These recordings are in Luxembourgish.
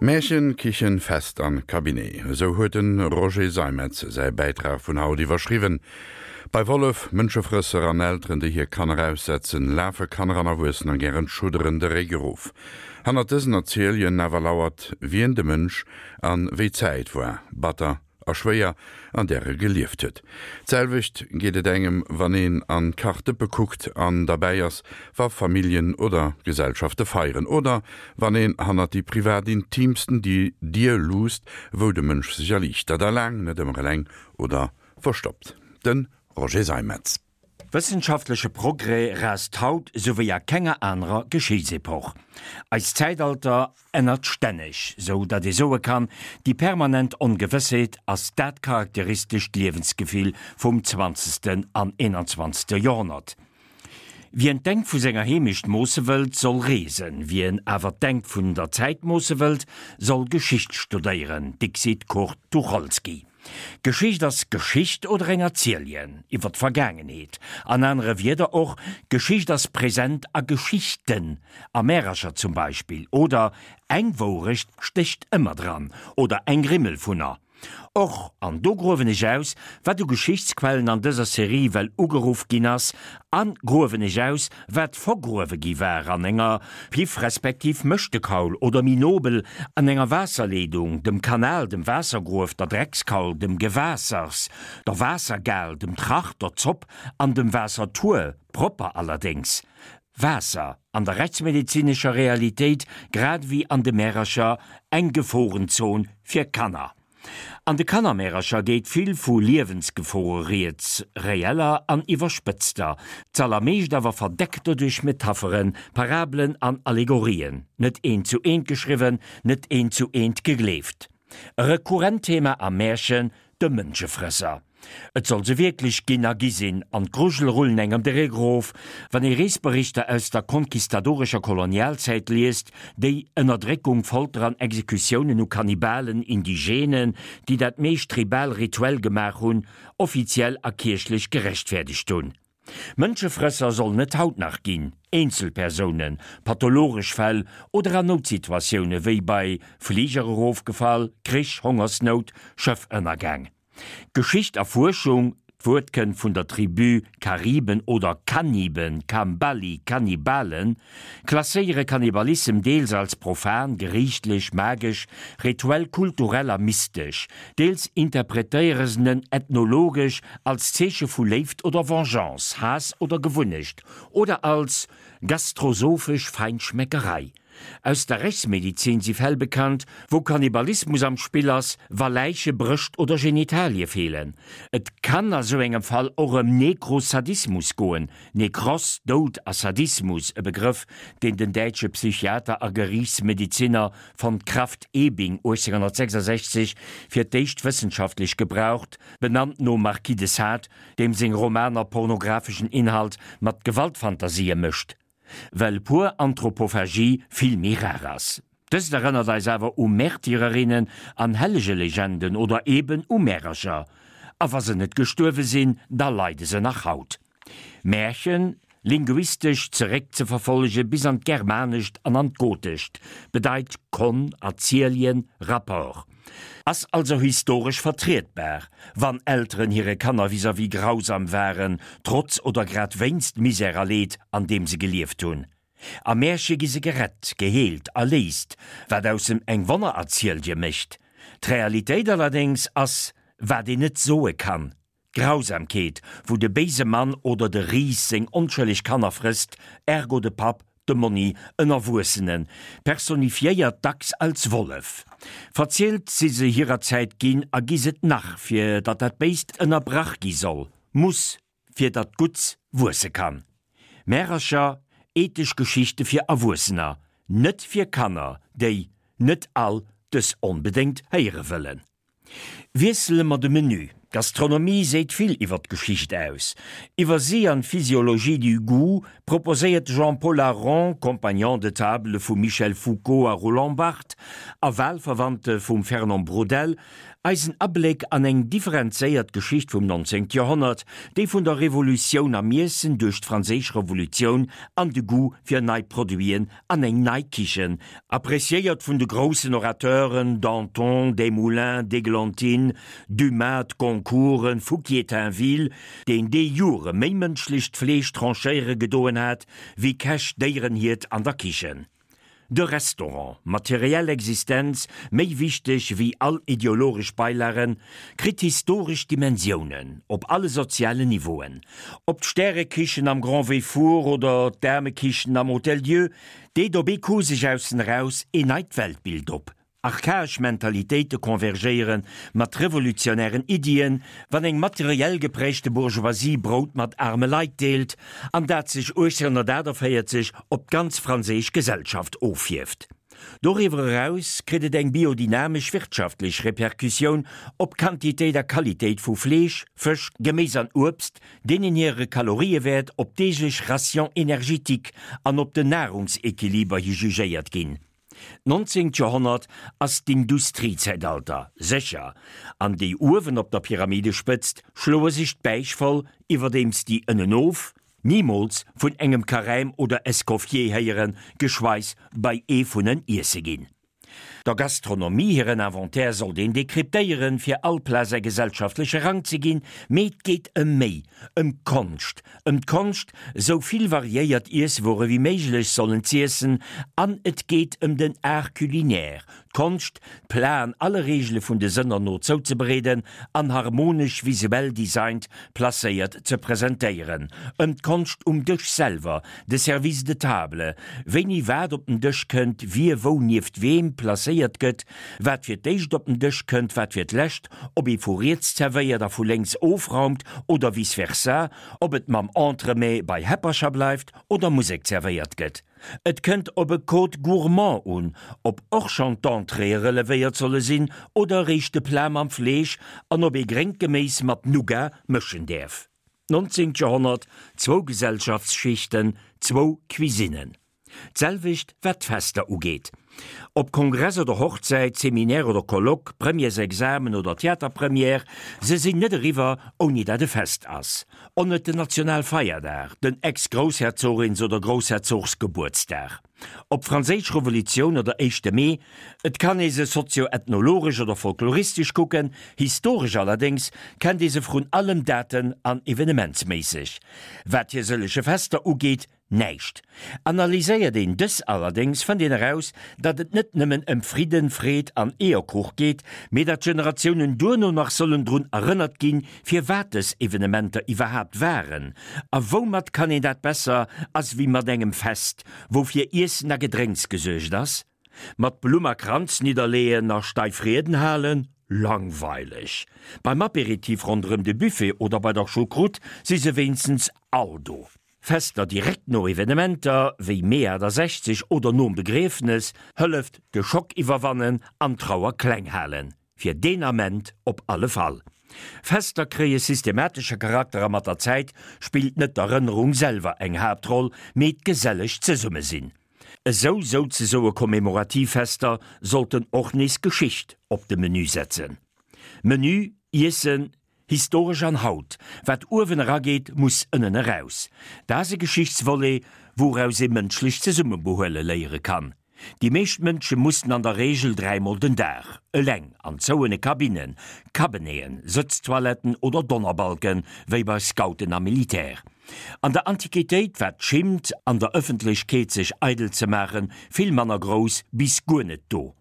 Märchen, Kichen, Fest an Cabinet, esou huet den Roger Seimetz säi Bäitrag vun haut iwwerschriwwen. Bei Wollef, Mënschefrësser an Elteren déi hir Kanner aussetzen, lafe Kanner an Erwuessener gären d'Schudderen de Réck erof. Hannert dësen Erzieljen awer lauert, wien de Mënsch an wéi d'Zäit war. Batter a schwéier, an där e gelieft huet. D'selwecht geet et engem, wann een an d'Kachdëppe kuckt an derbäi ass, wa Familljen oder Gesellschafte feieren, oder wann een hannert déi privat intiimsten Dier luusst, wou de Mënsch sech erliichtert, a laang net ëmmer eleng oder verstoppt. De Roger Seimetz. Wëssenschaftleche Progrès raast haut sou wéi a kenger anerer Geschichtsepoch. Eist Zäitalter ännert stänneg, sou datt ee soe kann, déi permanent Ongewëssheet ass dat charakteristescht Liewensgefill vum zwanzegsten an eenanzwanzegste Joerhonnert. Wien d'Engt vu senger Heemecht moosse wëllt, soll reesen, wien awer d'Engt vun der Zäit moosse wëllt, soll Geschicht studéieren, dixit Kurt Tucholsky. Geschicht ass Geschicht oder eng Erzieljen iwwer d'Vergaangenheet. An anere Wierder och, Geschicht ass present a Geschichten, a Märercher zum Beispill, oder eng Wourecht stécht ëmmer dran oder eng Rimmel vunner. Och, an do gruewen ech aus, wat u Geschichtsquellen an dëser Serie well ugeruff ginn ass, a gruewen ech aus, wat vergruewe gi war an enger Piff respektiv Mëschtekaul oder méi nobel an enger Waasserleedung, dem Kanal, dem Waassergruef, der Dreckskaul, dem Gewaassers, der Waassergal, dem Tracht, der Zopp an dem Waassertuer, propper allerdéngs. Waasser, an der rechtsmedezinescher Realitéit grad ewéi an de Märercher, eng Geforenzon fir Kanner. An de Kannermärercher geet vill vu Liewensgefore rieds, reeller an iwwerspëtzter, z'allermeescht awer verdeckter duerch Metapheren, Parabelen an Allegorien, net eent zu eent geschriwwen, net eent zu eent gegleeft. E rekurrent Thema am Märchen, de Mënschefrësser. Et soll se wierklech ginn a gi sinn, an d'Grujele rullen engem de Réck erof, wann ee Reesberichter aus der konquistadorescher Kolonialzäit liest, déi Ënnerdréckung, Folter an Exekutiounen u Kannibalen, Indigenen, déi dat meescht tribal-rituell gemaach hunn, offiziell a kierchlech gerechtfäerdegt hunn. Mënschefrësser sollen et haut nach ginn, Eenzelpersounen, pathologesch Fäll oder an Noutsituatioune wéi bei Fliger erofgefall, Krich, Hongersnout, Schëffënnergäng. Geschicht a Fuerschung, D'Wuert kënnt vun der Tribu Kariben oder Kaniben, Kambali, Kannibalen, klasséiere Kannibalissem deels als profan, geriichtlech, magesch, rituell, kulturell a mystesch, deels interpretéiere se en ethnologesch als Zeeche vu Léift oder Vengeance, Haass oder Gewunnecht, oder als gastrosophesch Feinschmeckerei. Aus der Rechtsmedizin si Fäll bekannt, wou Kannibalismus am Spill ass, wa Läiche, Brëscht oder Genitalie feelen. Et kann a sou engem Fall och ëm Nekrosadismus goen, Nekros, Doud, a Sadismus, e Begrëff, deen den däitsche Psychiater a Geriichtsmediziner von Krafft-Ebing 1866 fir d'éischt wëssenschaftlech gebraucht, benannt nom Marquis de Sade, deem seng Romaner pornographeschen Inhalt mat Gewaltfantasië mëscht. Well pur Anthropophagie vill méi rar ass. Dëst erënnert eis awer u Märtyrerinnen an Hellegelegenden oder eben u Märercher. A wa se net gestuerwe sinn, da leide se nach haut. Märchen, linguistesch zeréckzeverfollege bis an d'Germanescht an an d'Gotescht, bedeit Kon, Erzieljen, Rapport. Ass also historesch vertrietbar, wann Elteren hire Kanner vis-à-vis grausam waren, trotz oder grad wéinst Misär a Leed, an deem se gelieft hunn. Am Märche gi se gerett, geheelt, erléist, wat aus em eng Wonnererzielje mécht. D'Realitéit allerdéngs ass, wat een net soe kann, D'Grausamkeet, wou de béise Mann oder de Ris seng onschëlleg Kanner frësst, ergo de Papp, de Monni, en Erwuessenen, personifiéiert dacks als Wollef. Verzielt si se hirer Zäit ginn a gi s'et nach, fir datt dat Béist ënnerbrach gi soll, muss, fir datt d'Gutts wuesse kann. Märercher, ethesch Geschichte fir Erwuessener, net fir Kanner, déi net all dës onbedéngt héiere wëllen. Wiessele mer de Menü. D'Gastronomie seet vill iwwer d'Geschicht aus. Iwwer si an d'Physiologie du goût proposéiert de Jean-Paul Aron, Compagnon de table vum Michel Foucault a Roland Barthes a Wahlverwandte vum Fernand Braudel, eis en Abléck an eng differenzéiert Geschicht vum 19. Joerhonnert, déi vun der Revolutioun am Iessen duerch d'Franséisch Revolutioun an de Goût fir nei Produiten an eng nei Kichen, appréciéiert vun de groussen Orateuren Danton, Desmoulins, d'Eglantine, Dumas, d'Goncourten, Fouquier-Tinville, deen déi Jore méi mënschlecht Fleesch tranchéiere gedoen hat, wéi Käch Déierenhiert an der Kichen. De Restaurant, materiell Existenz méi wichteg wéi all ideologesch Beilagen, kritt historesch Dimensiounen op alle sozialen Niveauen. Ob d'Stärekichen am Grand Véfour oder d'Aarmekichen am Hôtel Dieu, deet op ee Coup sech aussen eraus een neit Weltbild op. Archaesch Mentalitéite convergéiere mat revolutionären Iddien, wann eng materiell geprägte Bourgeoisie Brout mat aarme Leit deelt, an dat sech 1848 op d'ganz franséisch Gesellschaft offierft. Doriwwer eraus kritt et eng biodynamesch wirtschaftlech Repercussioun op d'Quantitéit a Qualitéit vu Fleesch, Fësch, Geméis an Uebst, deenen hire Kaloriewäert op d'deeglech Ration énergétique an op den Nahrungsequiliber hi jugéiert ginn. D'nonzéngt Joerhonnert ass d'Industriezäitalter, sécher, an déi uewen op der Pyramidespëtzt schloe sech d'Bäich voll, iwwerdeems déi ënnenof nimools vun engem Carême oder Escoffier héieren, geschweis bei ee vun en iesse ginn. Der Gastronomie hiren Inventaire sollt een dekryptéieren, fir all Plat säi gesellschaftleche Rang ze ginn, mee et geet ëm méi, ëm d'Konscht, ëm d'Konscht, sou vill variéiert Iesswuere wéi méiglech sollen z'iessen, an et geet ëm den Art culinaire, d'Konscht, d'Platen alle Reegele vun de Sënner no zouzebereeden an harmonesch visuell designt placéiert ze presentéieren, ëm d'Konscht um Dësch selwer, de Service de table, wéini wat op den Dësch kënnt, wie wou nieft weem placéiert gëtt, wat fir d'éischt op den Dësch kënnt, wat fir d'lescht, ob ee vu riets zerwéiert a vu lénks ofraumt oder vice versa, ob et mam Entremets bei Häppercher bleift oder Musek zerwéiert gëtt. Et kënnt op e Code gourmand un, ob och schonn d'Entréeë relevéiert solle sinn oder eréischt de Plat mam Fleesch an ob ee gréngt Geméis mat Nougat mëschen däerf. D'nonzéngt Joerhonnert, zwou Gesellschaftsschichten, zwou Cuisinnen. D'selwecht wat d'Fester ugeet. Ob Kongress oder Hochzäit, Seminaire oder Colloque, Premièresexamen oder Theaterpremière, se sinn net eriwwer, ouni dat e Fest ass. Onnet den Nationalfeierdag, den Ex-Groussherzogins oder Groussherzogsgebuertsdag. Ob Franséisch Revolutioun oder éischte Mee, et kann ee se sozio-ethnologesch oder folkloristesch kucken, historesch allerdéngs kennt ee se vrun allem daten an evenementsméisseg. Wat hir sëllege Fester ugeet, Näischt. Analyséiert een dës allerdéngs, fënnt een eraus, datt et net nëmmen ëm Fridden, Freed an Eeërkuch geet, mee datt d'Generatiounen duerno nach sollen drun erënnert ginn, firwat dës Evenementer iwwerhaapt waren. A woumat kann een dat besser as wéi mat engem Fest, wou fir Iessen a Gedrénks gesuergt ass? Mat Blumm a Kranz nidderleeën a steif Rieden halen? Langweileg! Beim Apéritif ronderëm de Buffet oder bei der Choucroute si se wéinstens all do. Fester direkt no Evenementer wéi Mee 68 oder nom Begriefnes hëlleft de Schock iwwerwannen an d'Trauer kleng halen, fir deen Ament op alle Fall. Fester kréie systematesche Charakter a mat der Zäit spillt net d'Erënnerung selwer eng Haaptroll, mee d'geselleg Zesummesinn. Esou souzesoe commémorativ Fester sollten och nees Geschicht op de Menü setzen. Menü, Iessen, Historesch an haut, wat uewen erageet, muss ënnen eraus. Dat ass e Geschichtsvolet, wouraus ee mënschlecht Zesummebehuele léiere kann. Déi meescht Mënsche mussen an der Reegel dräimol den Dag, eleng, an zouene Kabinnen, Cabeneten, Sëtztoiletten oder Donnerbalken, wéi bei Scouten a Militär. An der Antiquitéit war d'Schimmt, an der Ëffentlechkeet sech eidel ze maachen, vill manner grouss bis guer net do.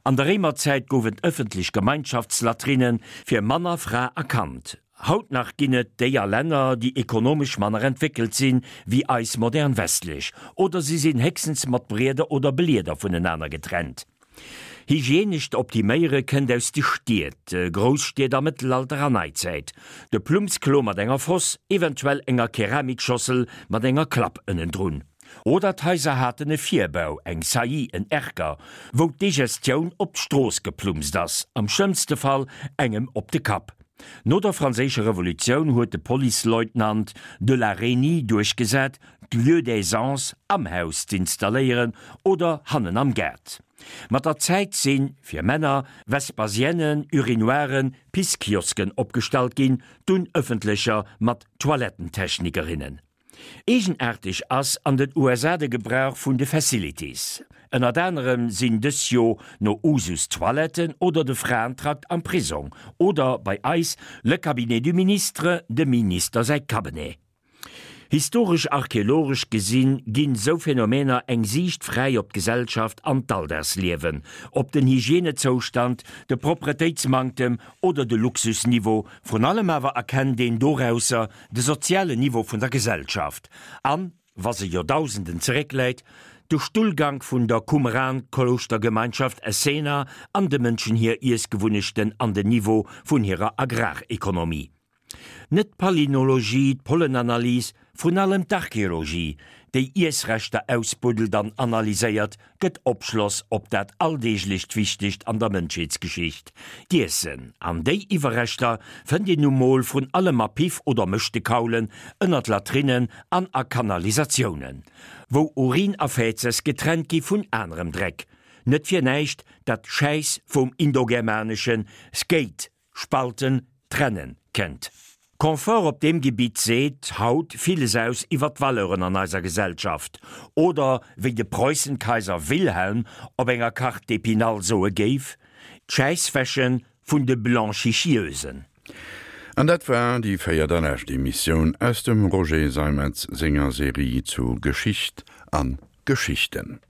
An der Réimerzäit gouf et ëffentlech Gemeinschaftslatrine fir Mann a Fra a Kand. Haut nach ginn et déi a Länner, déi ekonomesch manner entwéckelt sinn wéi eis modern westlech, oder si sinn héchstens mat Brieder oder Blieder vunenaner getrennt. Hygienescht Optiméiere kënnt aus de Stied, Grousstied am Mëttelalter a Neizäit. De Plummsklo mat enger Foss, eventuell enger Keramikschossel mat enger Klapp ënnendrun. Oder d'Haiser haten e Virbau, eng Saillie, en Erker, wou d'Digestioun op d'Strooss geplumpst ass, am schlëmmste Fall engem op de Kapp. No der Franséischer Revolutioun huet de Policeleutnant de la Reynie duerchgesat, d'Lieux d'aisance am Haus z'installéieren oder hannen am Gaart. Mat der Zäit sinn, fir Männer, Vespasienne, Urinoiren, Pisskiosken opgestallt ginn, dunn ëffentlecher mat Toilettentechnikerinnen. Eegenaarteg ass an den USA de Gebrauch vun de Facilities. Ënnert anerem sinn dës jo no Usus d'Toiletten oder de Fraentrakt am Prisong oder, bei eis, le cabinet du ministre, dem Minister säi Cabinet. Historesch-archeologesch gesinn ginn sou Phänomener eng Siicht fräi op d'Gesellschaft an d'Alldagsliewen, op den Hygienezoustand, de Propretéitsmanktem oder de Luxusniveau, vrun allem awer erkennt een dorausser de sozialen Niveau vun der Gesellschaft an, wa se Joerdausenden zeréckläit, de Stullgank vun der Qumran-Klouschtergemeinschaft Essener an de Mënschen hir Iessgewunnechten an den Niveau vun hirer Agrarekonomie. Net d'Palynologie, d'Pollenanalys, vrun allem d'Archeologie, déi Iessreschter ausbuddelt an analyséiert, gëtt Opschloss op dat alldeeglecht Wichtegt an der Mënschheetsgeschicht, d'Iessen. An déi Iwwerreschter fënnt een nu mol vrun allem a Piff oder Mëschtekaulen, ënnert Latrinnen an a Kanalisatiounen, wou Urin a Fäzes getrennt gi vun anerem Dreck. Net fir näischt dat Schäiss vum indogermanesche skeit Spalten, trennen kennt. Confort op deem Gebitt seet haut villes aus iwwer d'Valeuren an eiser Gesellschaft, oder wéi de Preußenkaiser Wilhelm op enger Carte d'Épinal soe géif, d'Schäisswäsche vun de Blanchichieusen. An dat war déi véiert a lescht Emissioun aus dem Roger Seimetz senger Serie zu Geschicht an Geschichten.